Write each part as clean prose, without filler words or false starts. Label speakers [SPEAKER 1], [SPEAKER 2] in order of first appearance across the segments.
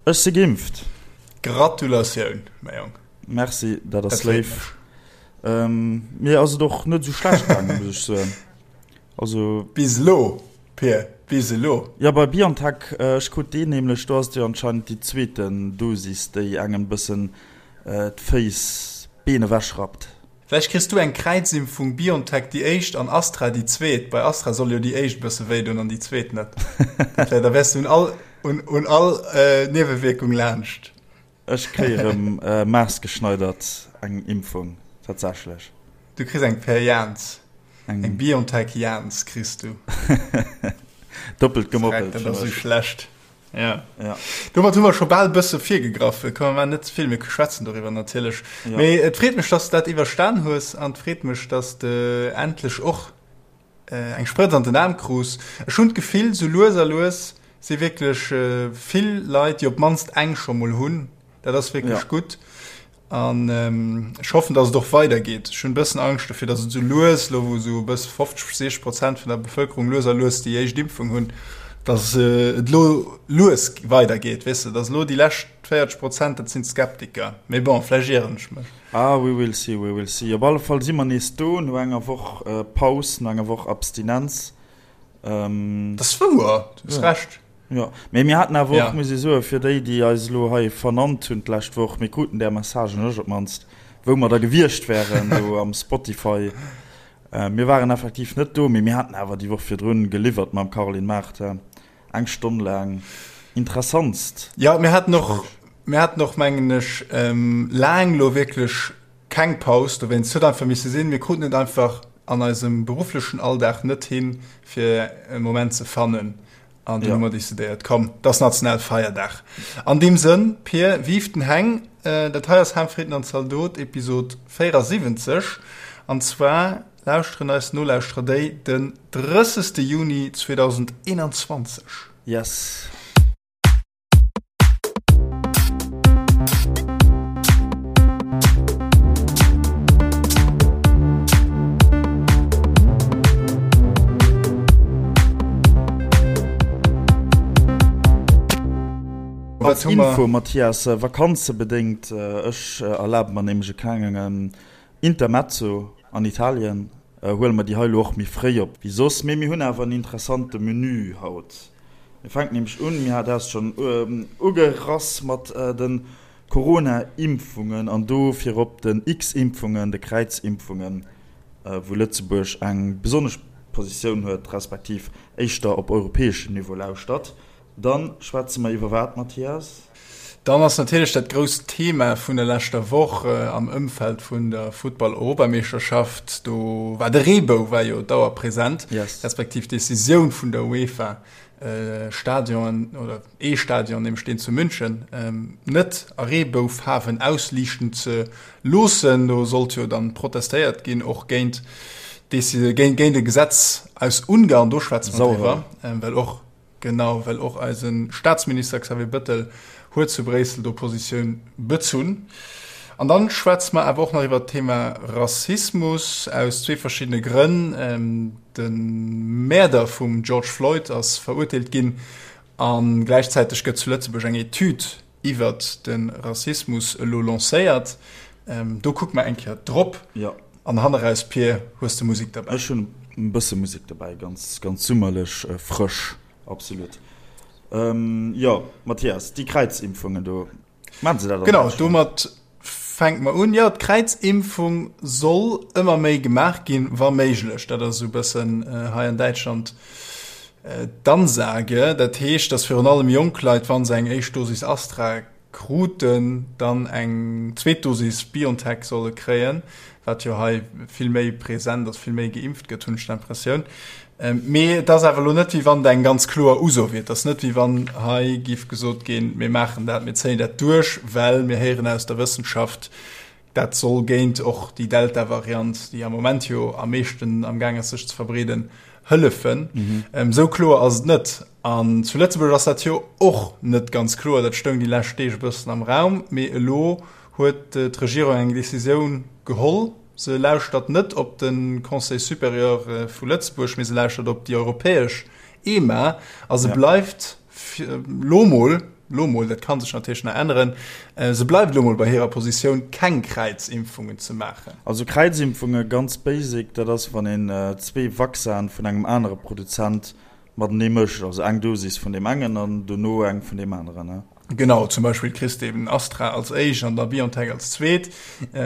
[SPEAKER 1] Ech si geimpft.
[SPEAKER 2] Gratulatioun, mäi Jong.
[SPEAKER 1] Merci, dat ass léif. Mir ass et och net esou schlecht gaangen, muss ech soen.
[SPEAKER 2] Also. Bis elo, Pir, bis elo.
[SPEAKER 1] Jo, bei BioNTech, ech krut deen nämlech, do ass et jo anscheinend déi zweeten Dosis, déi engem e bëssen d'Féiss, d'Been ewechrappt.
[SPEAKER 2] Vläicht kriss du eng Kräizimpfung, Biontech déi éischt an Astra déi zweet. Bei Astra soll jo déi éischt e bësse wéi doen an déi zweet net. Dat wär, da wäers du un all, un, un all Niewewierkung laanscht.
[SPEAKER 1] Ech kréie rëm maassgeschneidert eng Impfung, tatsächlech.
[SPEAKER 2] Du kriss eng per Jans. Eng Biontech Jans kriss du.
[SPEAKER 1] Doppelt gemoppelt.
[SPEAKER 2] Dat ass esou schlecht. Ja. ja. Domat hu mer scho bal bësse virgegraff. Komm mer net ze vill, mir schwätzen doriwwer natierlech. Ja. Mee et freet mech, dass du dat iwwerstan hues an et freet mech, dass de endlech och äh, eng Sprëtz an den Aarm krus. Ech hunn d'Gefill, sou lues a lues si wierklech äh, vill Leit, déi op d'mannst eng scho mol hunn. Dat ass wierklech ja. gutt. An ech hoffen, dass et och weidergeet. Ech hunn e bëssen Angscht dofir, dass et esou lues, elo wou esou e bësse 50, 60 Prozent vun der Bevëlkerung lues a lues déi éischt Impfung hunn, dass et elo lues weidergeet, weess de, dass elo déi lescht 40 Prozent, dat sinn d'Skeptiker. Mee bon, vläicht ieren ech mech.
[SPEAKER 1] Ah, we will see, we will see. Op alle Fall si mer nees do no enger Woch Paus, no enger Woch Abstinenz.
[SPEAKER 2] Dat ass wouer, du hues Recht.
[SPEAKER 1] Jo, mee mir haten awer och, muss ee soen, fir déi, déi eis elo hei vernannt hunn d'lescht Woch, mir kruten där Messagen, ech op d'mannst, wou mer da gewiescht wären do am Spotify. Mir waren effektiv net do, mee mir haten awer déi Woch virdrun geliwwert mam Caroline Mart, eng Stonn laang interessantst.
[SPEAKER 2] Jo, mir haten och, mir haten och, mengen ech, laang elo wierklech keng Paus dowéinst. Et huet einfach misse sinn. Mir kruten et einfach an eisem berufflechen Alldag net hin, fir e Moment ze fannen. An dunn hu mer decidéiert, komm, et ass Nationalfeierdag. An deem Sënn, Pir, vive den Heng! Dat hei ass Ham, Fritten an Zaldot, Episod 74. An zwar lauschteren eis Nolauschterer déi den 30. Juni 2021.
[SPEAKER 1] Yes. Als Info, Mathias, vakanzebedéngt, ech erlabe mer nämlech e klengen Intermezzo an Italien, huele mer déi hei elo och méi fréi op wéi soss. Mee mir hunn awer en interessante Menü haut. Mir fänken nämlech un, mir hat s schonn ugerass mat de Corona-Impfungen an do virop den X-Impfungen, de Kräizimpfungen, wou Lëtzebuerg eng besonnesch Positioun huet, respektiv éischter op europäeschem Niveau lauschtert. Dann schwätze mer iwwer wat, Mathias?
[SPEAKER 2] Dann ass natierlech dat grousst Thema vun der leschter Woch am Ëmfeld vun der Futtball-Europameeschterschaft, do war de Reebou war jo dauerpresent, respektiv d'Decisioun vun der UEFA, Stadionen oder ee Stadion, nämlech deen zu München, net a Reeboufaarwen ausliichten ze loossen. Do sollt jo dann protestéiert ginn, och géint géint e Gesetz aus Ungarn, do schwätze mer driwwer, well och Genau, well och eise Staatsminister Xavier Bëttel huet zu Bréissel do Positioun bezunn. An dann schwätze mer awer och nach iwwert d'Thema Rassismus aus zwee verschiddene Grënn. De Mäerder vum George Floyd ass verurteelt ginn a gläichzäiteg gëtt zu Lëtzebuerg eng Etüd iwwert de Rassismus elo lancéiert. Do kucke mer eng Kéier drop. An hanneraus, Pir, hues de Musek derbäi?
[SPEAKER 1] Ech hunn e bësse Musek derbäi, ganz, ganz summerlech, frësch, absolut. Jo, Mathias, déi Kräizimpfungen do,
[SPEAKER 2] maachen se dat an Genau, Däitschland? domat fänke mer un. Jo, d'Kräizimpfung soll ëmmer méi gemaach ginn, wa méiglech. Dat ass esou e bëssen hei an Däitschland d'Ansage. Dat heescht, datt virun allem jonk Leit, wa se eng éischt Dosis Astra kruten, dann eng zweet Dosis BioNTech solle kréien, wat jo hei vill méi present ass, vill méi geimpft gëtt, hunn ech d'Impressioun. Mee et ass awer elo net, wéi wann et eng ganz kloer Uso wier. Et ass net, wéi wann hei géif gesot ginn, mir maachen dat, mir zéien dat duerch, well mir héieren aus der Wëssenschaft, Dat soll géint och déi Delta-Variant, déi am Moment jo am meeschten am Gaang ass sech ze verbreeden, hëllefen. Esou kloer ass et net. An zu Lëtzebuerg ass dat jo och net ganz kloer. Dat stoung déi lescht Deeg e bëssen am Raum. Mee elo huet d'Regierung eng Decisioun geholl. Se lauschtert net op de Conseil supérieur vu Lëtzebuerg, mee se lauschtert op déi europäesch EMA. A se bleift lo mol. Lo mol, dat ka sech natierlech nach änneren, se bleift elo mol bei hirer Positioun, keng Kräizimpfungen ze maachen.
[SPEAKER 1] Also Kräizimpfunge, ganz basic, dat ass wann een zwee Vaccinen vun engem anere Produzent matenee mëscht, also eng Dosis vun deem engen an dono eng vun deem aneren.
[SPEAKER 2] Genau, zum Beispill kriss de eben Astra als éischt an da BioNTech als zweet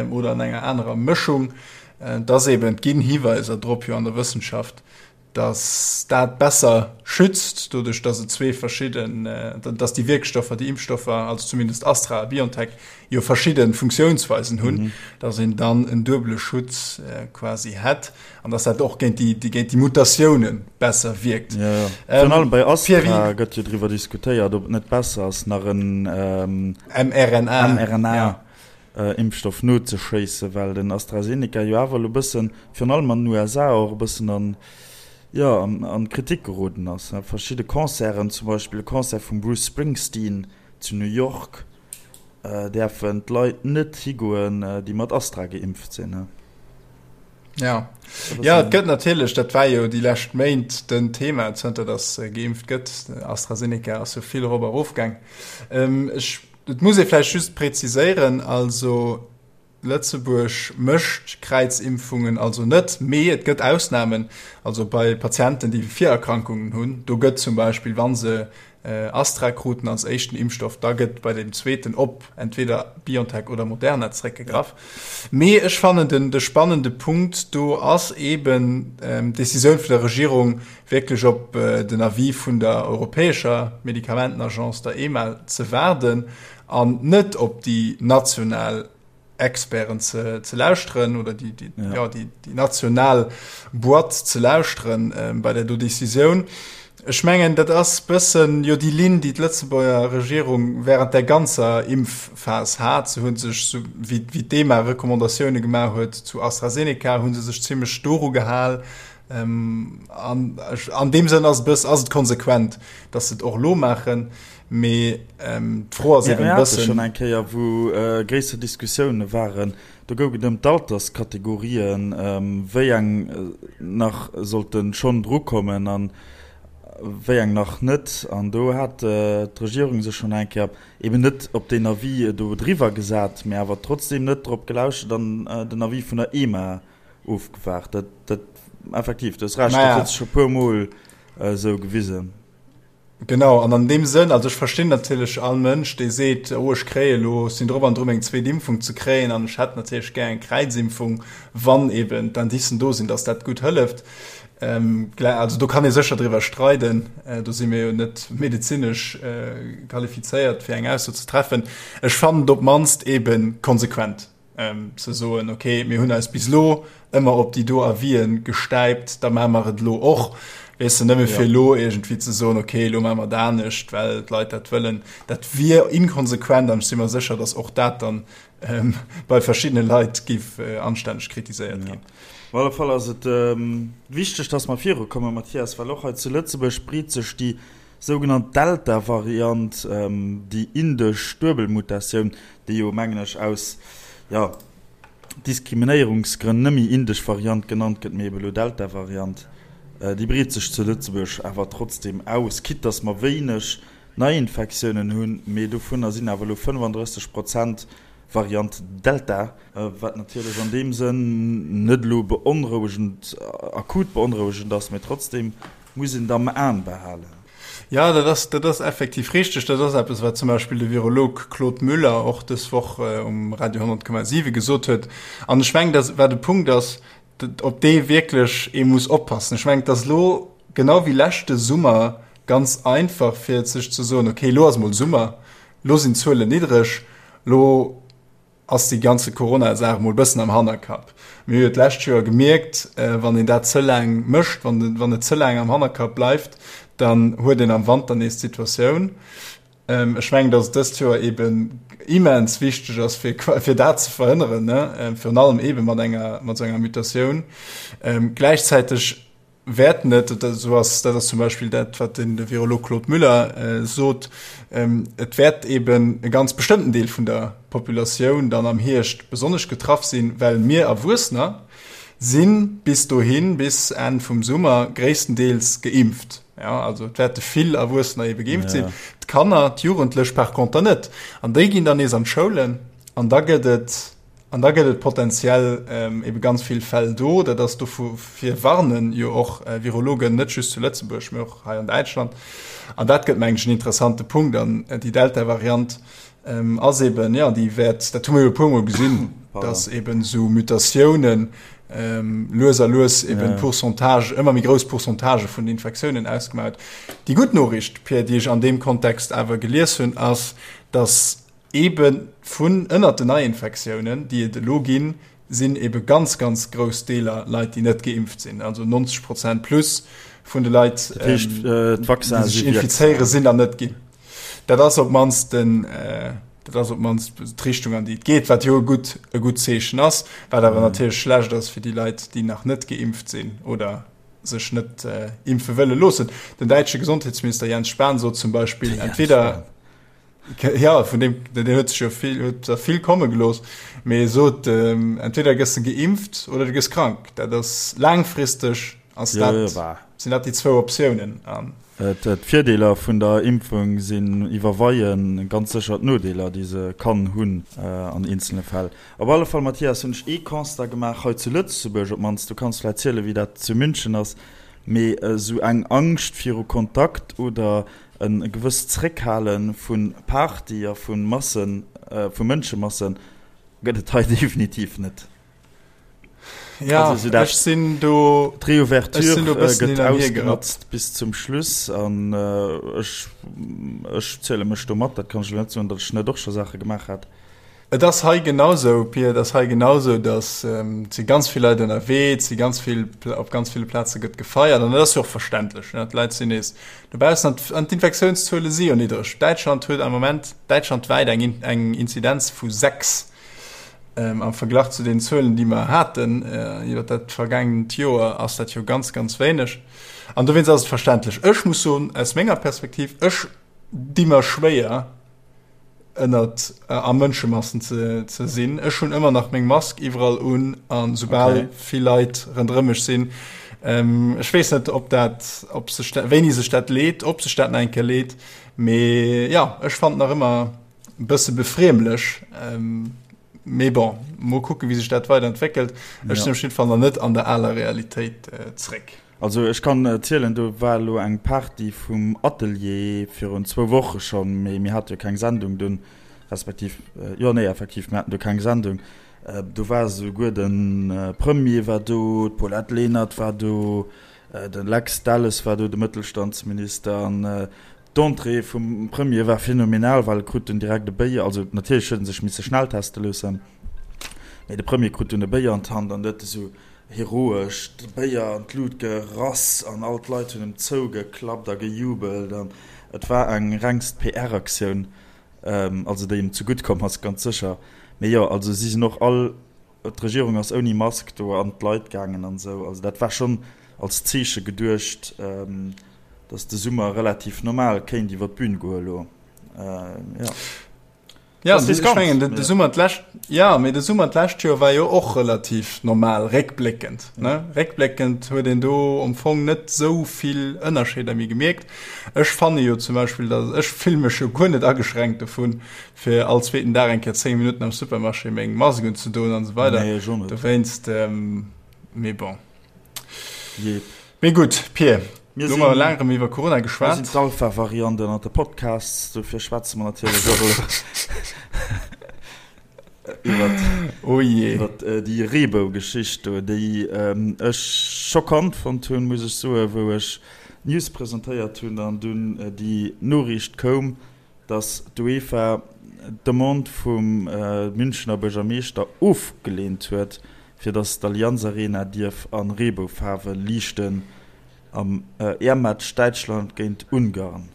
[SPEAKER 2] oder an enger anerer Mëschung. Et ass eben, et ginn Hiweiser drop jo an der Wëssenschaft, dass dat besser schützt, doduerch dass et zwee verschidden, dass déi Wierkstoffer, déi Impfstoffer, also zumindest Astra a BioNTech, jo verschidde Funktiounsweisen hunn, dass een dann en duebele Schutz quasi hätt an dass dat och géint déi, géint déi Mutatioune besser wierkt.
[SPEAKER 1] Jo, jo. Virun allem bei Astra gëtt jo driwwer diskutéiert, ob et net besser ass, nach en
[SPEAKER 2] mRNA,
[SPEAKER 1] mRNA. Impfstoff nozeschéissen, well den AstraZeneca jo awer elo e bëssen, virun allem an den USA, och e bëssen an, jo, an d'Kritik geroden ass. Verschidde Concerten, zum Beispill e Concert vum Bruce Springsteen zu New York, däerfen d'Leit net higoen, déi mat Astra geimpft sinn.
[SPEAKER 2] Ja, ja et gëtt natierlech, dat war jo déi lescht Méint den Thema, zënter datt geimpft gëtt, AstraZeneca ass jo vill erop a erof gaang. Ech Et muss ee vläicht just präziséieren, also Lëtzebuerg mécht Kräizimpfungen also net, mee et gëtt Ausnamen, also bei Patienten, déi Virerkrankungen hunn, do gëtt zum Beispill, wa se Astra kruten als éischten Impfstoff, da gëtt bei deem zweeten op entweder BioNTech oder Moderna zeréckgegraff. Mee ech fannen, den de spannende Punkt do ass eeben d'Decisioun vun der Regierung, wierklech op den Avis vun der europäescher Medikamentenagence, der EMA, ze waarden an net op déi national Experten ze lauschteren oder déi, déi, ja. ja, déi, déi national Boîte ze lauschteren äh, bei der do Decisioun. Ech mengen, dat ass bëssen jo déi Linn, déi d'Lëtzebuerger Regierung während der ganzer Impfphas hat. Se hunn sech, so wéi, wéi d'EMA Recommandatioune gemaach huet zu AstraZeneca, hu se sech zimmlech doru gehal. An an deem Sënn ass et bëss, ass et konsequent, datt se et och elo maachen. Mee d'Fro ass
[SPEAKER 1] eben e bëssen. Mir hate schonn eng Kéier, wou gréisser Diskussioune waren, do goug et ëm d'Alterskategorien, wéi eng nach sollte schonn drukommen a wéi eng nach net. An do hat d'Regierung sech schonn eng Kéier eben net op deen Avis do driwwer gesat, mee awer trotzdeem net drop gelauschtert an den Avis vun der EMA Ofgewaart. Dat, dat, effektiv, du hues Recht, dat huet sech scho puer Mol esou gewisen.
[SPEAKER 2] Genau, an an deem Sënn, also ech verstinn natierlech all Mënsch, dee seet, oh ech kréie elo, ech sinn drop an dru meng zweet Impfung ze kréien an ech hätt natierlech gär eng Kräizimpfung, wann eben d'Indicen do sinn, datt dat gutt hëlleft. Also do kann ee sécher driwwer streiden, do si mir jo net medezinesch qualifizéiert, fir eng Ausso ze treffen. Ech fannen et op d'mannst ebe konsequent. ze soen, okay, mir hunn eis bis elo ëmmer op déi do Avisen gestäipt, da maache mer et elo och. Weess de, nëmme fir elo iergendwéi ze soen, okay, elo maache mer et anescht, well d'Leit dat wëllen, dat wier inkonsequent an ech si mer sécher, datt och dat dann bei verschiddene Leit géif anstänneg kritiséiert ginn.
[SPEAKER 1] Op alle Fall ass et wichteg, datt mer virukommen, Mathias, well och hei zu Lëtzebuerg breet sech déi Sougenannt Delta-Variant, déi indesch Duebelmutatioun, déi jo, mengen ech, aus, jo, Diskriminéierungsgrënn nëmme indesch Variant genannt gëtt, mee ebe lo Delta-Variant, déi breet sech zu Lëtzebuerg awer trotzdeem aus, quitte dass mer wéineg Neiinfektiounen hunn, mee dovunner sinn awer elo 35 Prozent Variant Delta, wat natierlech an deem Sënn net elo beonrouegend, akut beonrouegend ass, mee trotzdeem Muss een et am Aen behalen.
[SPEAKER 2] Jo, dat ass, dat ass effektiv richteg. Dat ass eppes, wat zum Beispill de Virolog Claude Müller och dës Woch um Radio 100,7 gesot huet. An ech mengen, dass, wat e Punkt ass, op dee wierklech ee muss oppassen. Ech mengen, et ass elo genau wéi leschte Summer ganz einfach, fir sech ze soen, okay, elo ass emol Summer, elo sinn d'Zuelen niddreg, elo ass déi ganze Corona-Saach mol bëssen am Hannerkapp. Mir hu jo d'lescht Joer gemierkt, wann een dat ze laang mécht, wann wann et ze laang am Hannerkapp bleift, dann huet een am Wanter nees d'Situatioun. Ech mengen, datt et dëst Joer eeben immens wichteg ass, fir fir dat ze verhënneren, ne, virun allem eebe mat enger mat esou enger Mutatioun. Gläichzäiteg wäert net, esou ass, dat ass zum Beispill dat, wat den Virolog Claude Müller sot, et wäert eben e ganz bestëmmten Deel vun der Populatioun dann am Hierscht besonnesch getraff sinn, well mir Erwuessener si bis dohin, bis Enn vum Summer, gréisstendeels geimpft. Ja, also et wäerte vill Erwuessener ebe geimpft sinn. D'Kanner, d'Jugendlech par conter net. An déi ginn dann nees an d'Schoulen an da gëtt et an da gëtt et potenziell ähm, ebe ganz vill Fäll do. Dat ass dofir warnen jo och äh, Virologen net just zu Lëtzebuerg, mee och hei an Däitschland. An dat gëtt mengen ech en interessante Punkt an äh, déi Delta-Variant ähm, ass eben, ja, déi wäert, dat hu mir jo e puermol gesinn, dass eben esou Mutatiounen ähm, lues a lues eben ja. Pourcentage, ëmmer méi grouss Pourcentage vun den Infektiounen ausgemaach huet. Déi gutt Noriicht, Pierre, déi ech an deem Kontext awer gelies hunn, ass, dass eben vun ënnert den Neiinfektiounen, déi et elo ginn, sinn ebe ganz, ganz grouss Deeler Leit, déi net geimpft sinn. Also 90 Prozent plus vun de Leit,
[SPEAKER 1] dat heescht, ähm,
[SPEAKER 2] déi sech infizéieren, sinn dann net ginn. Dat ass op d'mannst den, dat ass op d'mannst d'Richtung, an déi et geet, wat jo e gutt, e gutt Zeechen ass, wat awer natierlech schlecht ass fir déi Leit, déi nach net geimpft sinn oder sech net impfe wëlle loossen. Den däitsche Gesondheetsminister Jens Spahn sot zum Beispill, entweder, jo, vun deem, deen huet sech jo vill, huet der vill komme gelooss, mee e sot, entweder gëss de geimpft oder du gëss krank. Dat ass laangfristeg Ass dat, sinn dat déi zwou Optiounen?
[SPEAKER 1] D'Virdeeler vun der Impfung sinn iwwerweie ganz sécher d'Nodeeler, déi se kann hunn an eenzele Fäll. Op alle Fall, Mathias, hunn ech ee Constat gemaach hei zu Lëtzebuerg op d'mannst, du kanns vläicht zielen, wéi dat zu München ass, mee esou eng Angscht viru Kontakt oder e gewësst Zréckhale vu Party a vu Massen, vu Mënschemasse gëtt et hei definitiv net.
[SPEAKER 2] Ja, also, so ech sinn do
[SPEAKER 1] d'Reouverture gëtt ausgenotzt bis zum Schluss an äh, ech, ech ziele mech do mat, dat kann ech net soen, datt ech net och scho Saache gemaach hat.
[SPEAKER 2] Et ass hei genausou, Pia, et ass hei genausou, datt ähm, si ganz vill Leit ënnerwee, et si ganz vill, op ganz ville Plaze gëtt gefeiert an dat ass jo och verständlech, ne? D'Leit sinn nees dobaussen an an d'Infektiounszuele si jo niddreg. Däitschland huet am Moment däitschlandwäit eng, eng Inzidenz vu 6. Am Verglach zu den Zuelen, déi mer haten iwwer dat vergaangent Joer, ass dat jo ganz, ganz wéineg. An dowéinst ass et verständlech. Ech muss soen, aus menger Perspektiv, ech di mer schwéier, ënnert a Mënschemassen ze, ze sinn. Ech hunn ëmmer nach meng Mask iwwerall un a soubal vill Leit ronderëm mech sinn. Ech weess net, ob dat, ob sech dat, wéini sech dat leet, ob sech dat nach eng Kéier leet. Mee jo, ech fannen nach ëmmer, E bësse befriemlech, mee bon, mol kucken, wéi sech dat weider entwéckelt. Ech sinn op jidde Fall nach net an der aler Realitéit zréck.
[SPEAKER 1] Also ech kann erzielen, do war elo eng Party vum Atelier virun zwou Woche schonn, mee mir hate jo keng Sendung dunn, respektiv, jo nee effektiv, mir haten do keng Sendung. Do war esouguer de Premier war do, d'Paulette Lenert war do, de Lex Delles war do, de Mëttelstandsminister, an D'Entrée vum Premier war phänomenal, well e krut dunn direkt e Béier, also natierlech huet en sech misse schnellteste loossen, mee de Premier krut dunn e Béier an d'Hand an huet esou heroesch de Béier an d'Lut gerass an all d'Leit hunn em zougeklappt a gejubelt an et war eng rengst PR-Aktioun, also déi em zegutt komm ass, ganz sécher. Mee jo, also si sinn och all D'Regierung ass ouni Mask do an d'Leit gaangen an esou. Also dat war schonn als Zeeche geduecht, datt de Summer relativ normal kéint iwwer d'Bün goe elo.
[SPEAKER 2] Jo. Ja, ech mengen de Summer d'lescht, ja, mee de Summer d'lescht Joer war jo och relativ normal, réckbléckend, ne? Réckbléckend huet een do am Fong net esou vill Ënnerscheeder méi gemierkt. Ech fanne jo zum Beispill, datt ech fille mech jo guer net ageschränkt dovun, fir all zweeten Dag eng Kéier 10 Minutten am Supermarché meng Mask unzedoen an esou weider.
[SPEAKER 1] Nee, ech och net.
[SPEAKER 2] Dowéinst, mee bon.
[SPEAKER 1] Jee.
[SPEAKER 2] Mee gutt, Pir, Mir elo hu mer laang erëm iwwer Corona
[SPEAKER 1] Mir
[SPEAKER 2] geschwat.
[SPEAKER 1] sinn d'Alpha-Variant ënnert de Podcasts, dofir schwätze mer natierlech och elo iwwert,
[SPEAKER 2] Oh jee.
[SPEAKER 1] iwwert déi Reebou-Geschicht do, déi ech schockant fonnt hunn, muss ech soen, wou ech d'News presentéiert hunn an dunn déi Noriicht koum, datt d'UEFA d'Demande vum Münchener Buergermeeschter ofgeleent huet, fir datt d'Allianz Arena dierf a Reeboufaarwe liichten am EM-Match Däitschland géint Ungarn.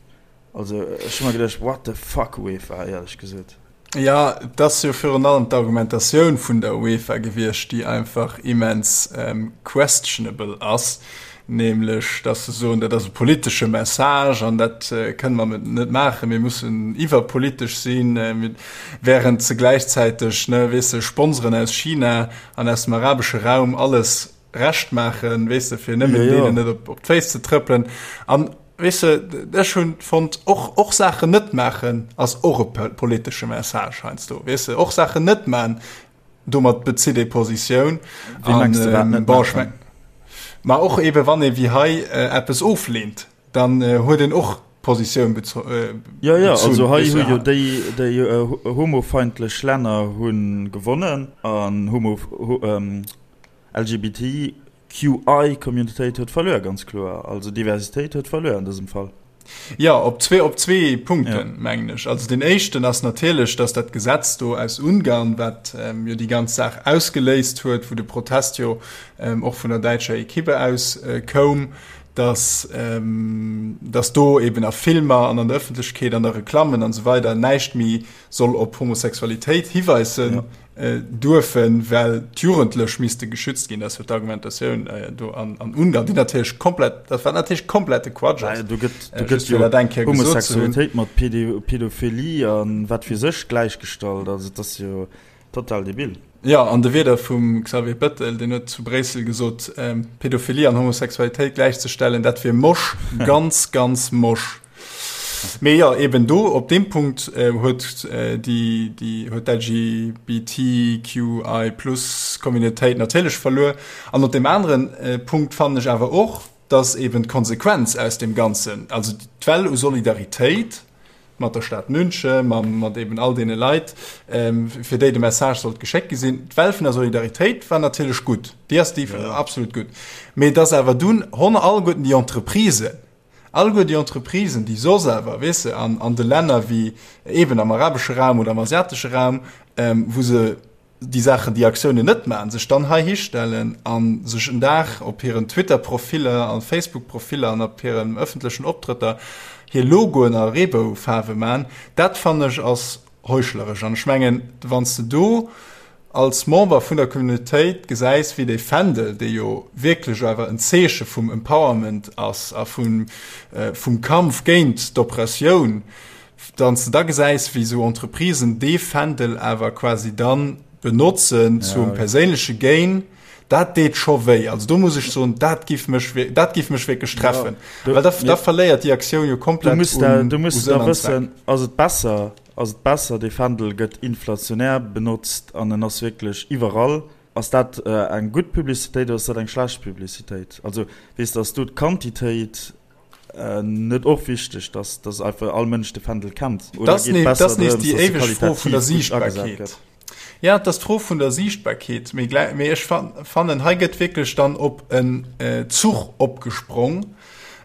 [SPEAKER 1] Also ech hu mer geduecht, what the fuck UEFA, éierlech gesot.
[SPEAKER 2] Jo, et ass jo virun allem d'Argumentatioun vun der UEFA gewiescht, déi einfach immens questionable ass, nämlech datt se soen, dat ass e politesche Message an dat kënne mer net maachen, mir mussen iwwerpolitesch sinn, während se gläichzäiteg, ne, weess de, Sponsoren aus China an aus dem arabesche Raum alles Recht maachen, weess de, fir nëmmen deenen net op d'Féiss ze trëppelen. An. Weess de, ech hunn fonnt, och, och Saachen net maachen ass och e politesche Message heiansdo, weess de, och Saachen net man, domat bezitt ee Positioun.
[SPEAKER 1] Wéi mengs de, wat net
[SPEAKER 2] maachen? Bon, ech meng, ma och ebe wann ee wéi hei eppes ofleent, dann huet een och Positioun bezunn.
[SPEAKER 1] Jo, jo, also hei hu jo déi, déi homofeindlech Länner hu gewonnen an homo, LGBT QI-Communitéit huet verluer, ganz kloer. Also Diversitéit huet verluer an dësem Fall.
[SPEAKER 2] Jo, op zwee, op zwee Punkten, ja. mengen ech. Also deen éischten ass natierlech, datt dat Gesetz do aus Ungarn, wat ähm, jo déi ganz Saach ausgeléist huet, wou de Protest jo ähm, och vun der däitscher Ekippe aus äh, koum, datt ähm, datt do eben a Filmer an an der Ëffentlechkeet, an der Reklammen an esou weider näischt méi soll op Homosexualitéit hiweisen. Ja. Duerfen, well d'Jugendlech misste geschützt ginn. Dat ass jo d'Argumentatioun do an Ungarn, déi natierlech komplett, dat wat natierlech komplette Quatsch ass.
[SPEAKER 1] Do gëtt, do gëtt jo Homosexualitéit mat Pedophilie a wat weess ech gläichgestallt. Also et ass jo total debil.
[SPEAKER 2] Jo, an de Wierder vum Xavier Bettel, deen huet zu Bréissel gesot, Pedophilie an Homosexualitéit gläichzestellen, dat wier mosch, ganz, ganz mosch. Mee jo, eben do op deem Punkt huet déi déi huet d'LGBTQI plus Communautéit natierlech verluer. An op deem aneren Punkt fannen ech awer och, datt eben d'Konsequenz aus deem Ganzen, also d'Well u Solidaritéit mat der Stad München, mam mat eben all deene Leit, fir déi de Message sollt geschéckt gi sinn, d'Well vun der Solidaritéit war natierlech gutt, déi ass déi absolut gutt. Mee datt awer dunn honn alleguerten déi Entreprisen, Alleguer déi Entreprisen, déi soss awer, weess de, an, an de Länner wéi eeben am arabesche Raum oder am asiatesche Raum, wou se déi Saachen, déi Aktiounen net maachen, sech dann hei histellen a sech en Dag op hiren Twitter-Profiller a Facebook-Profiller an op hiren ëffentlechen Optrëtter hir Logoen a Reeboufaarwe maachen, dat fannen ech ass heuchleresch. An ech mengen, wann s de do als Member vun der Communautéit gesäis, wéi dee Fändel, dee jo wierklech awer en Zeeche vum Empowerment ass a vum, vum Kampf géint d'Oppressioun, wann s de da gesäis, wéi esou Entreprisen dee Fändel awer quasi dann benotzen zum perséinleche Gain, dat deet scho wéi. Also do muss ech soen, dat giff mech, dat giff mech wierklech treffen, well da, da verléiert déi Aktioun jo komplett
[SPEAKER 1] un Sënn an Zweck. Du muss da wëssen, ass et besser, ass et besser, dee Fändel gëtt inflationär benotzt an en ass wierklech iwwerall. Ass dat eng gutt Publicitéit oder ass dat eng schlecht Publicitéit? Also weess de, ass do d'Quantitéit net och wichteg, dass, dass einfach all Mënsch de Fändel kennt?
[SPEAKER 2] Oder geet et besser drëms, dass e qualitativ gutt agesat gëtt? Ja, et ass d'Fro vun der Siichtbarkeet. Mee gläi, mee ech fannen, hei gëtt wierklech dann op en Zuch opgesprong.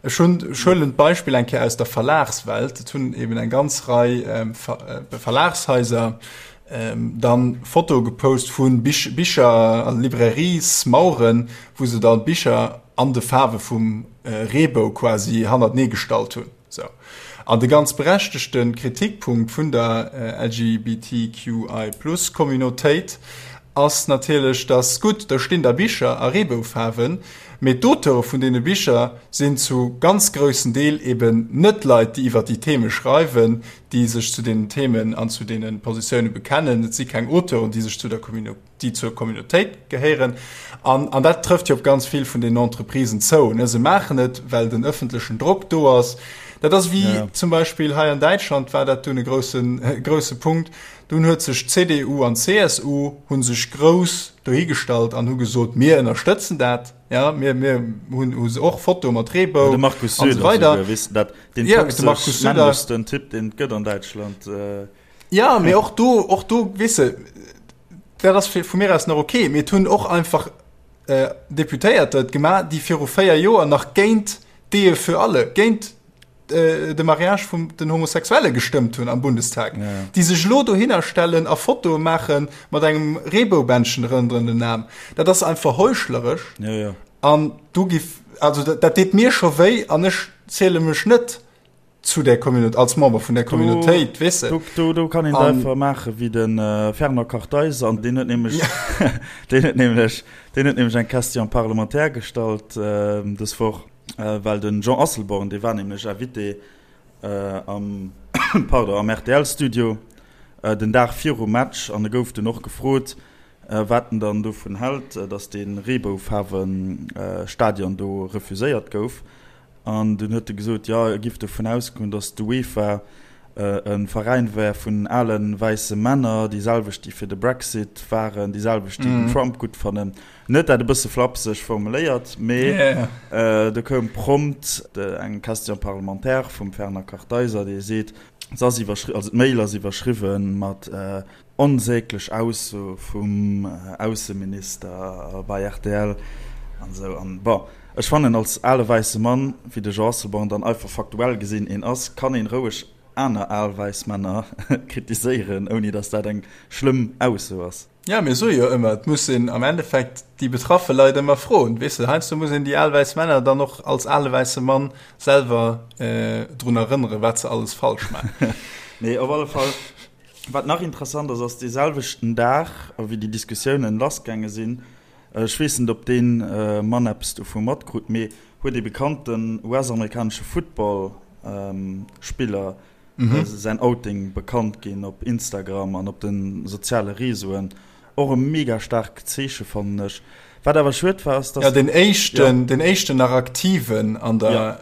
[SPEAKER 2] Ech hunn, ech huelen d'Beispill eng Kéier aus der Verlagswelt. Et hunn eben eng ganz Rei Verlagshaiser dann Fotoe gepost vu Bicher a Librairiesmaueren, wou se dann d'Bicher an de Faarwe vum Reebou quasi hannertenee gestallt hunn. Sou. An de ganz berechtegte Kritikpunkt vun der LGBTQI-Plus-Communautéit ass natierlech, dass, gutt, do stinn da Bicher a Reeboufaarwen, mee d'Auteure vun deene Bicher sinn zu ganz groussen Deel eben net Leit, déi iwwer déi Theme schreiwen, déi sech zu deenen Themen an zu deene Positioune bekennen. Et si keng Auteuren, déi sech zu der déi zur Communautéit gehéieren. An, an dat trëfft jo op ganz vill vun den Entreprisen zou. Ne? Se maachen et, well den ëffentlechen Drock do ass. Dat ass wéi ja. zum Beispill hei an Däitschland war dat dunn e groussen, grousse Punkt. Dunn huet sech CDU an CSU hunn sech grouss dohigestallt an hu gesot, mir ënnerstëtzen dat. Ja, mir, mir hunn hu se och Foto mat Reebou
[SPEAKER 1] ja, de Markus
[SPEAKER 2] Söder,
[SPEAKER 1] so
[SPEAKER 2] weider.
[SPEAKER 1] Weess du dat, den ja, de Markus Söder. Typ, den et gëtt an Däitschland.
[SPEAKER 2] Äh. Ja, mee och do, och do, weess de, dat ass vu mir aus nach okay, mee et hunn och einfach äh, Deputéierter et gemaach, déi viru 4 Joer nach géint d'Ehe für alle, géint äh, de Mariage vum den Homosexuelle gestëmmt hunn am Bundestag, ja. déi sech elo dohinner stellen a Fotoe maache mat engem Reeboubändchen rënderen den Aarm. Dat ass einfach heuchleresch.
[SPEAKER 1] Ja, ja.
[SPEAKER 2] An du giff, also dat, dat deet mir scho wéi an ech ziele mech net zu der Communauté, als Member vun der Communautéit, weess
[SPEAKER 1] de. Do, do, do kann een et einfach maache wéi de Fernand Kartheiser, an deen huet nämlech, deen huet nämlech, deen huet nämlech eng Question parlementaire gestallt dës Woch, well de Jean Asselborn, dee war nämlech Invité am, pardon, am RTL-Studio den Dag virum Match an e gouf dunn och gefrot, wat en dann dovun hält, datt dee Reeboufaarwe-Stadion do refuséiert gouf. An dunn huet e gesot, jo, e giff dovun ausgoen, datt d'UEFA e Veräin wär vun ale wäisse Männer, déi selwecht, déi fir de Brexit waren, déi selwecht, déi den Trump gutt fannen. En huet dat e bësse flapseg formuléiert, mee do koum prompt eng Question parlementaire vum Fernand Kartheiser, dee seet, se ass iwwerschri-, also d'Mail ass iwwerschriwwe mat Onsäglech Ausso vum Ausseminister bei rtl an esou. An bon, ech fannen als ale wäisse Mann, wéi de Jean Asselborn dann einfach faktuell gesinn een ass, kann een roueg aner al wäiss Männer kritiséieren, ouni dass dat eng schlëmm Ausso ass.
[SPEAKER 2] Jo, mir soe jo ëmmer, et muss een am Endeffekt déi betraffe Leit ëmmer froen. Weess de, heiansdo muss een déi al wäiss Männer dann och als ale wäisse Mann selwer drun erënneren, wat se alles falsch maachen.
[SPEAKER 1] Nee, op alle Fall. Wat nach interessant ass, ass dee selwechten Dag, wéi déi Diskussiounen lassgaange sinn, ech weess net, ob dee Mann eppes dovu matkrut, mee huet ee bekannten US-amerikanesche Football-Spiller säin Outing bekannt ginn op Instagram an op de soziale Reseauen. Och e mega staarkt Zeeche fannen ech. Wat awer schued war ass,
[SPEAKER 2] dass. Ja, den éischten, den éischten nach aktiven an der ja,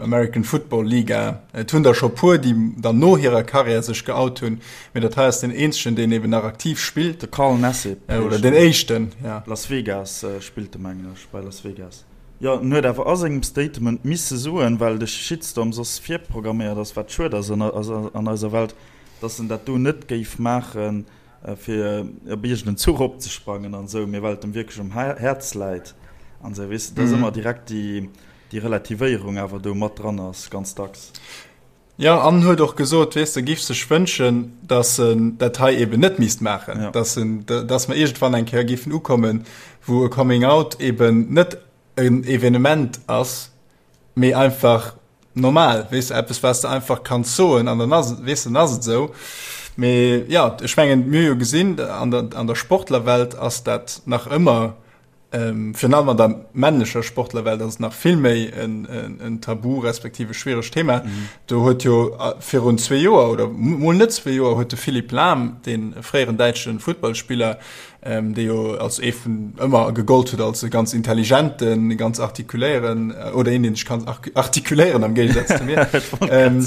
[SPEAKER 2] American Football Liga. Et hunn der scho puer, déi dann no hirer Karriär sech geout hunn, mee dat hei ass den eenzegen, deen eben nach aktiv spillt.
[SPEAKER 1] De Carl Nassib.
[SPEAKER 2] Äh, oder den éischten, ja.
[SPEAKER 1] Las Vegas äh, spillt de mengen ech, bei Las Vegas. Jo, en huet awer a sengem Statement misse soen, well de Shitstorm soss virprogramméiert ass, wat schued ass an, an eiser Welt, dass en dat do net géif maachen, fir op iergend en Zuch opzesprangen an esou, mee well et em wierklech um Häerz läit an esou, weess de, dass ëmmer direkt déi, déi Relativéierung awer do mat dran ass, ganz dacks.
[SPEAKER 2] Jo, an huet och gesot, weess de, giff sech wënschen, dass en dat hei eben net misst maachen, dass en, dass mer iergendwann eng Kéier giffen ukommen, wou e Coming Out eben net en Evenement ass, mee einfach normal, weess de, eppes wat s de einfach kanns soen an dann ass et, weess de, dann ass et esou. Mee jo, ech mengen, mir hu jo gesinn, an der, an der Sportlerwelt ass dat nach ëmmer, virun allem an der männlecher Sportlerwelt ass et nach vill méi en, en, en Tabu respektiv e schwieregt Thema. Do huet jo virun zwee Joer oder mol net zwee Joer huet de Philipp Lahm, dee fréieren däitsche Futtballspiller, ähm, dee jo als ee vun ëmmer gegollt huet als e ganz intelligenten, e ganz artikuléieren äh, oder een, deen sech kann artikuléieren am Géigesaz zu mir, ähm,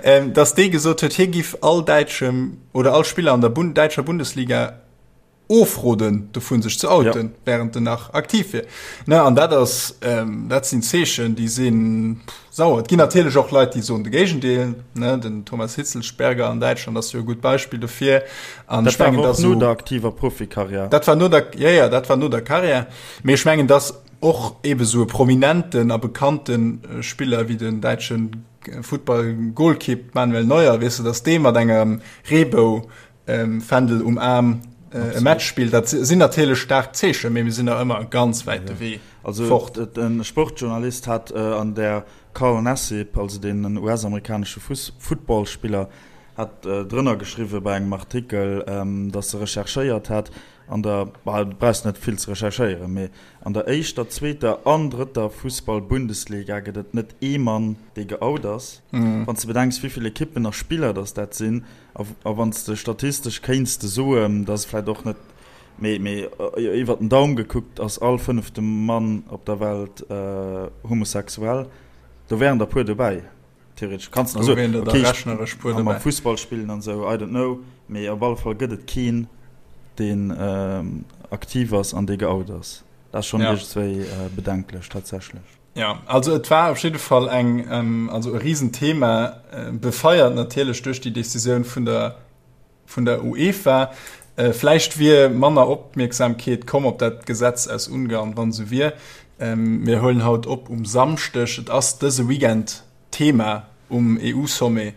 [SPEAKER 2] ähm, dass dee gesot huet, hie giff all däitschem oder all Spiller an der Bund däitscher Bundesliga ofroden dovun sech ze outen, ja. während en nach aktiv wier. Ne, an dat ass ähm, dat sinn Zeechen, déi sinn Sauer. Et ginn natierlech och Leit, déi soen de Géigendeel, ne, den Thomas Hitzlsperger an Däitschland ass jo e gutt Beispill dofir.
[SPEAKER 1] An ech mengen, dass no der aktiver Profikarriär.
[SPEAKER 2] Dat war no der, ja, ja, dat war no der Karriär. Mee ech mengen, dass och ebe sou e prominenten a bekannte Spiller wéi den däitsche Futtball-Golkipp Manuel Neuer, weess de, dass dee mat engem Reebou Fändel um Aarm e Match spillt, dat sinn natierlech staark Zeechen, mee mir sinn nach ëmmer e ganz wäite Wee
[SPEAKER 1] fort. Also e Sportjournalist hat an der Carl Nassib, also deen US-amerikanesche Footballspiller, hat drënner geschriwwe bei engem Artikel, datt e recherchéiert hat an der, bah, du brauchs net vill ze recherchéieren, mee an der éischter, zweeter an drëtter Fussball-Bundesliga gëtt et net ee Mann, dee geout ass. Wann s de bedenks, wéi vill Ekippen a Spiller datt dat sinn, A wann s de statistesch kéints de soen, dass vläicht och net, mee, mee iwwert den Daum gekuckt ass all fënnefte Mann op der Welt homosexuell, do wären der puer dobäi, theoretesch. Kanns de nach soen, okay, ech ka mam Fussball spillen an esou, I don't know, mee op alle Fall gëtt et keen, deen aktiv ass an dee geout ass. Dat ass schonn iergendswéi bedenklech tatsächlech.
[SPEAKER 2] Ja, also et war op jidde Fall eng, ähm, also e Riesenthema, äh, befeiert natierlech duerch déi Decisioun vun der, vun der UEFA. Äh, vläicht wier manner Opmierksamkeet komm op dat Gesetz aus Ungarn, wann esou wier. Ähm, mir huelen haut op um Samschdeg. Et ass dëse Weekend Thema um EU-Sommet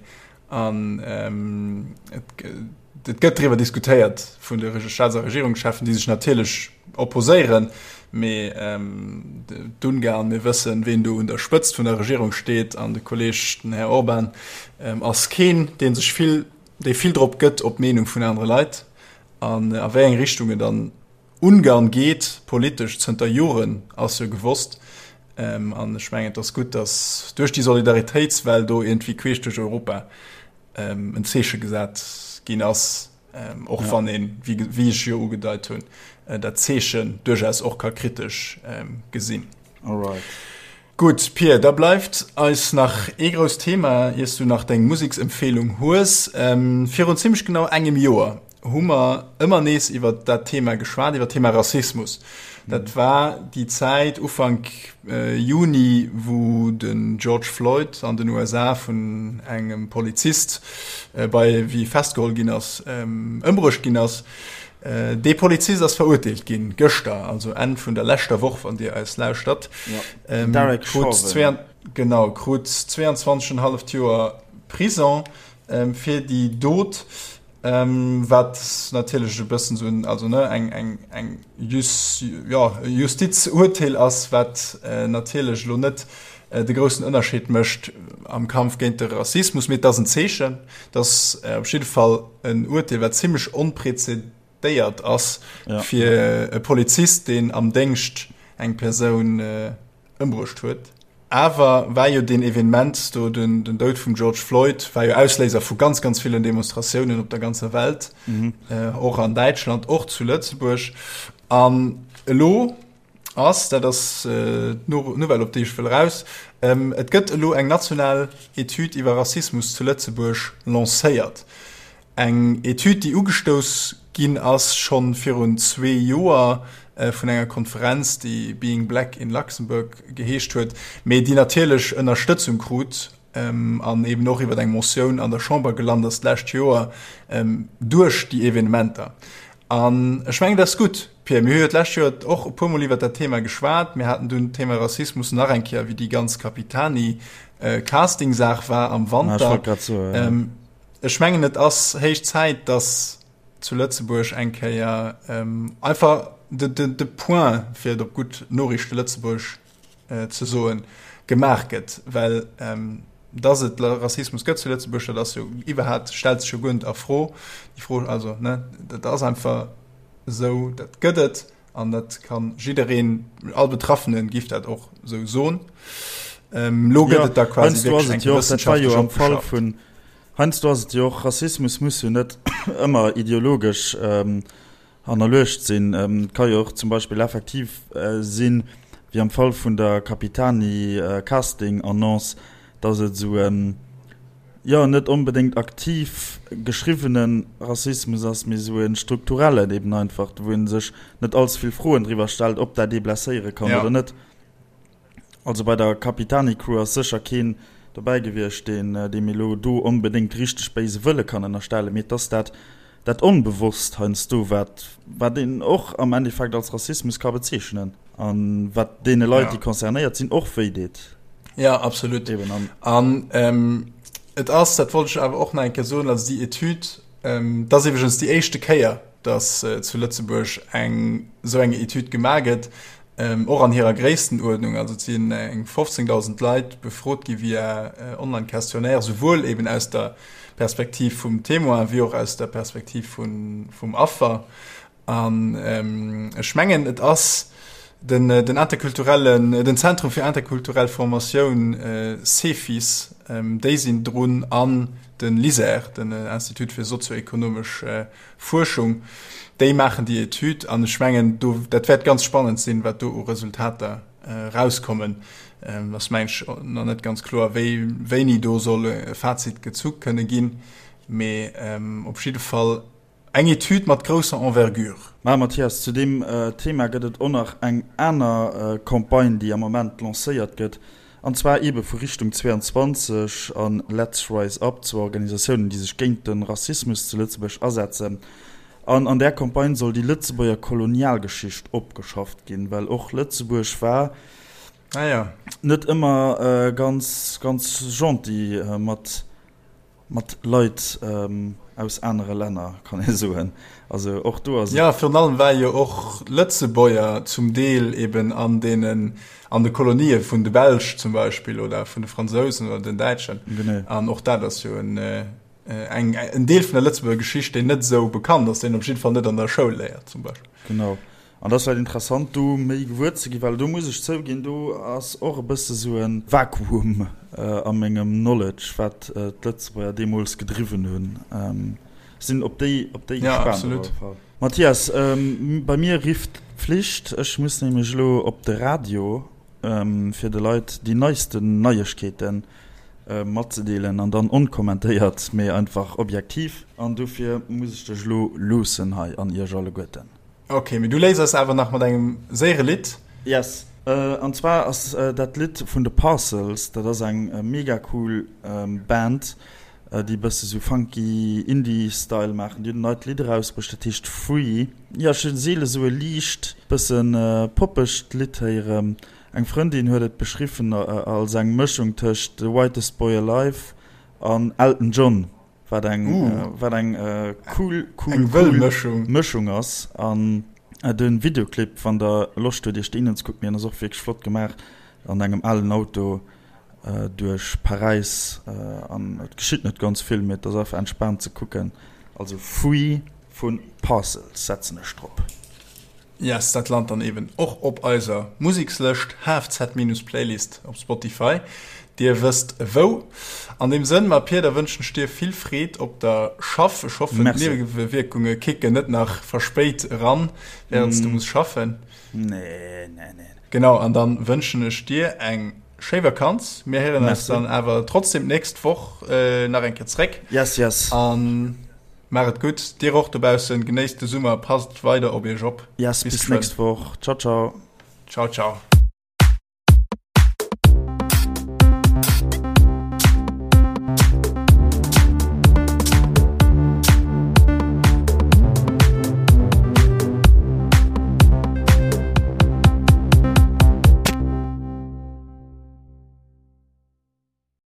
[SPEAKER 2] an ähm, et, et gëtt driwwer diskutéiert vun de Staats a Regierungscheffen, déi sech natierlech opposéieren, mee ähm, d'Ungarn, mir wëssen, ween do un der Spëtzt vun der Regierung steet, an de Kolleg, den Här Orban, ähm, ass keen, dee sech vill, dee vill drop gëtt op d'Meenung vun anere Leit an a wéi eng Richtung et an Ungarn geet politesch zënter Joren, ass jo gewosst. An ech mengen, et ass gutt, datt duerch déi Solidaritéitswell do iergendwéi queesch duerch Europa en Zeeche gesat ginn ass, och wann een, wéi ech jo ugedeit hunn, dat Zeechen duerchaus och ka kritesch gesinn.
[SPEAKER 1] Alright.
[SPEAKER 2] Gutt, Pir, da bleift eis nach ee grousst Thema, iers du nach deng Museksempfehlung hues. Virun zimmlech genau engem Joer hu mer ëmmer nees iwwer dat Thema geschwat, iwwer d'Thema Rassismus. Dat war déi Zäit Ufank Juni, wou den George Floyd an den USA vun engem Polizist, bei wéi e festgeholl ginn ass, ëmbruecht ginn ass. Dee Polizist ass verurteelt ginn, gëschter, also Enn vun der leschter Woch, wann Dir eis lauschtert.
[SPEAKER 1] Den Derek Chauvin.
[SPEAKER 2] Genau, krut 22 en halleft Joer Prison fir déi Dot. Wat natierlech e bëssen esou en, also ne, eng, eng, eng Jus, jo, e Justizurteel ass, wat natierlech elo net de groussen Ënnerscheed mécht am Kampf géint de Rassismus, mee et ass en Zeechen. Et ass op jidde Fall en Urteel, wat zimlech onprezedéiert ass fir e Polizist, deen am Déngscht eng Persoun ëmbruecht huet. Awer war jo deen Evenement do, den Doud vum George Floyd, war jo Ausléiser vu ganz, ganz villen Demonstratiounen op der ganzer Welt, och an Däitschland, och zu Lëtzebuerg. An elo ass, dat ass d'Nouvelle, op déi ech wëll eraus, et gëtt elo eng national Etüd iwwer Rassismus zu Lëtzebuerg lancéiert. Eng Etüd, déi ugestouss ginn ass scho virun zwee Joer vun enger Konferenz, déi Being Black in Luxembourg geheescht huet, mee déi natierlech Ënnerstëtzung krut an eben och iwwer eng Motioun an der Chamber gelant ass d'lescht Joer duerch déi Evenementer. An ech mengen, dat ass gutt, Pierre. Mir hu jo d'lescht Joer och e puermol iwwer dat Thema geschwat. Mir haten dunn d'Thema Rassismus nach eng Kéier, wéi déi ganz Capitani-Casting-Saach war am Wanter. Ech mengen et ass héich Zäit, datt zu Lëtzebuerg eng Kéier einfach de Point, fir et op gutt Noriichte-Lëtzebuergesch ze soen, gemaach gëtt. Well datt et Rassismus gëtt zu Lëtzebuerg, dat ass jo iwwerhaapt, stellt sech jo guer net a Fro. Déi Fro, also ne, dat ass einfach esou, dat gëtt et. An dat kann jiddereen, all Betraffenen giff dat och sou soen. Lo gëtt et da quasi wierklech eng wëssenschaftlech
[SPEAKER 1] opgeschafft. Heiansdo ass et jo och, Rassismus muss jo net ëmmer ideologesch hannerluecht sinn. Et ka jo och zum Beispill effektiv sinn, wéi am Fall vun der Capitani Casting Annonce, dass et esou en, jo, net onbedéngt aktiv geschriwwene Rassismus ass, mee esou e strukturellen eben einfach, wou ee sech net allze vill Froen driwwer stellt, ob dat ee blesséiere kann oder net. Also bei der Capitani-Crew ass sécher keen dobäi gewiescht, deen deem elo do onbedéngt richteg béise Wëlle kann ënnerstellen, mee et ass dat dat Onbewosst heiansdo, wat wat een och am Endeffekt als Rassismus ka bezeechnen a wat deene Leit, déi concernéiert sinn, och wéi deet.
[SPEAKER 2] Ja, absolut. Eben an. An ähm, et ass, dat wollt ech awer och nach eng Kéier soen, also déi Etüd, ähm, dat ass iwwregens déi éischte Kéier, dass äh, zu Lëtzebuerg eng esou eng Etüd gemaach gëtt, ähm, och an hirer Gréisstenuerdnung. Also et sinn eng 15.000 Leit befrot gi via äh, Online-Questionnaire, souwuel eben aus der Perspektiv vum Témoin wéi och aus der Perspektiv vun, vum Affer. An ech mengen, et ass den, den interkulturellen, den Zentrum fir interkulturell Formatioun, CEFIS, déi sinn drun, an de LISER, den Institut fir sozioekonomesch Fuerschung, déi maachen déi Etüd. An ech mengen, do, dat wäert ganz spannend sinn, wat do u Resultater erauskommen. Et ass, mengen ech, nach net ganz kloer, wéi, wéini do soll e Fazit gezu kënne ginn. Mee op jidde Fall Eng Etüd mat grousser Envergure.
[SPEAKER 1] Mä Mathias, zu deem Thema gëtt et och nach eng aner Campagne, déi am Moment lancéiert gëtt, an zwar eebe vu Richtung 22 a Let's Rise Up, zwou Organisatiounen, déi sech géint de Rassismus zu Lëtzebuerg asetzen. An an där Campagne soll déi Lëtzebuerger Kolonialgeschicht opgeschafft ginn, well och Lëtzebuerg war net ëmmer ganz, ganz gentil mat Mat Leit aus anere Länner, kann ee soen. Also och do ass
[SPEAKER 2] et. Jo, virun allem war jo och Lëtzebuerger zum Deel eben an deenen, an de Kolonië vun de Belsch zum Beispill oder vun de Fransousen oder den Däitschen.
[SPEAKER 1] Genee.
[SPEAKER 2] An och dat ass jo en, eng, en Deel vun der Lëtzebuerger Geschicht, deen net esou bekannt ass, deen een op jidde Fall net an der Schoul léiert zum Beispill.
[SPEAKER 1] Genau. An dat ass vläicht interessant, do méi gewuer ze ginn, well do muss ech zouginn, do ass och e bësse sou e Vakuum a mengem Knowledge, wat d'Lëtzebuerger deemools gedriwwen hunn. Sinn op déi, op déi
[SPEAKER 2] gespaant op alle Fall.
[SPEAKER 1] Mathias, bei mir rifft d'Pflicht, ech muss nämlech elo op de Radio. fir de Leit déi neisten Neiegkeeten matzedeelen an dann onkommentéiert, mee einfach objektiv. An dofir muss ech dech elo loossen hei an iech alleguerten.
[SPEAKER 2] Ok, mee du léiss eis awer nach mat engem séiere Lidd.
[SPEAKER 1] Yes, an zwar ass dat Lidd vun de Parcels. Dat ass eng mega cool Band, déi e bësse sou funky Indie Style maachen. Déi hunn en neit Lidd erausbruecht, dat heescht Free. Jo, ech hu seele sou e liicht bësse poppegt Lidd héieren. Eng Frëndin huet et beschriwwen als eng Mëschung tëscht The Whitest Boy Alive an Elton John. Wat eng, wat eng cool, cool, eng wëll Mëschung. Mëschung ass. An de Videoclip, wann der Loscht huet iech deen unzekucken, deen ass och wierklech flott gemaach, an engem alen Auto duerch Paräis. An et geschitt net ganz vill, mee et ass einfach entspaant ze kucken. Also Free vu Parcels setzen ech drop.
[SPEAKER 2] Yes, dat lant dann eben och op eiser Musikslëscht, HFZ-Playlist op Spotify. Dir wësst wou. An deem Sënn, ma Pir, da wënschen ech dir vill Freed op der Schaff. Ech hoffen, d'Niewewierkunge kicken net nach verspéit eran, während s du muss schaffen.
[SPEAKER 1] Nee, nee, nee.
[SPEAKER 2] Genau, an dann wënschen ech dir eng schéi Vakanz. Mir héieren eis dann awer trotzdem d'nächst Woch nach eng Kéier zréck.
[SPEAKER 1] Yes, yes.
[SPEAKER 2] An Maach et gutt, dir och dobaussen, genéisst de Summer, passt weider op iech op.
[SPEAKER 1] Yes, bis nächst Woch. Ciao, ciao.
[SPEAKER 2] Ciao, ciao.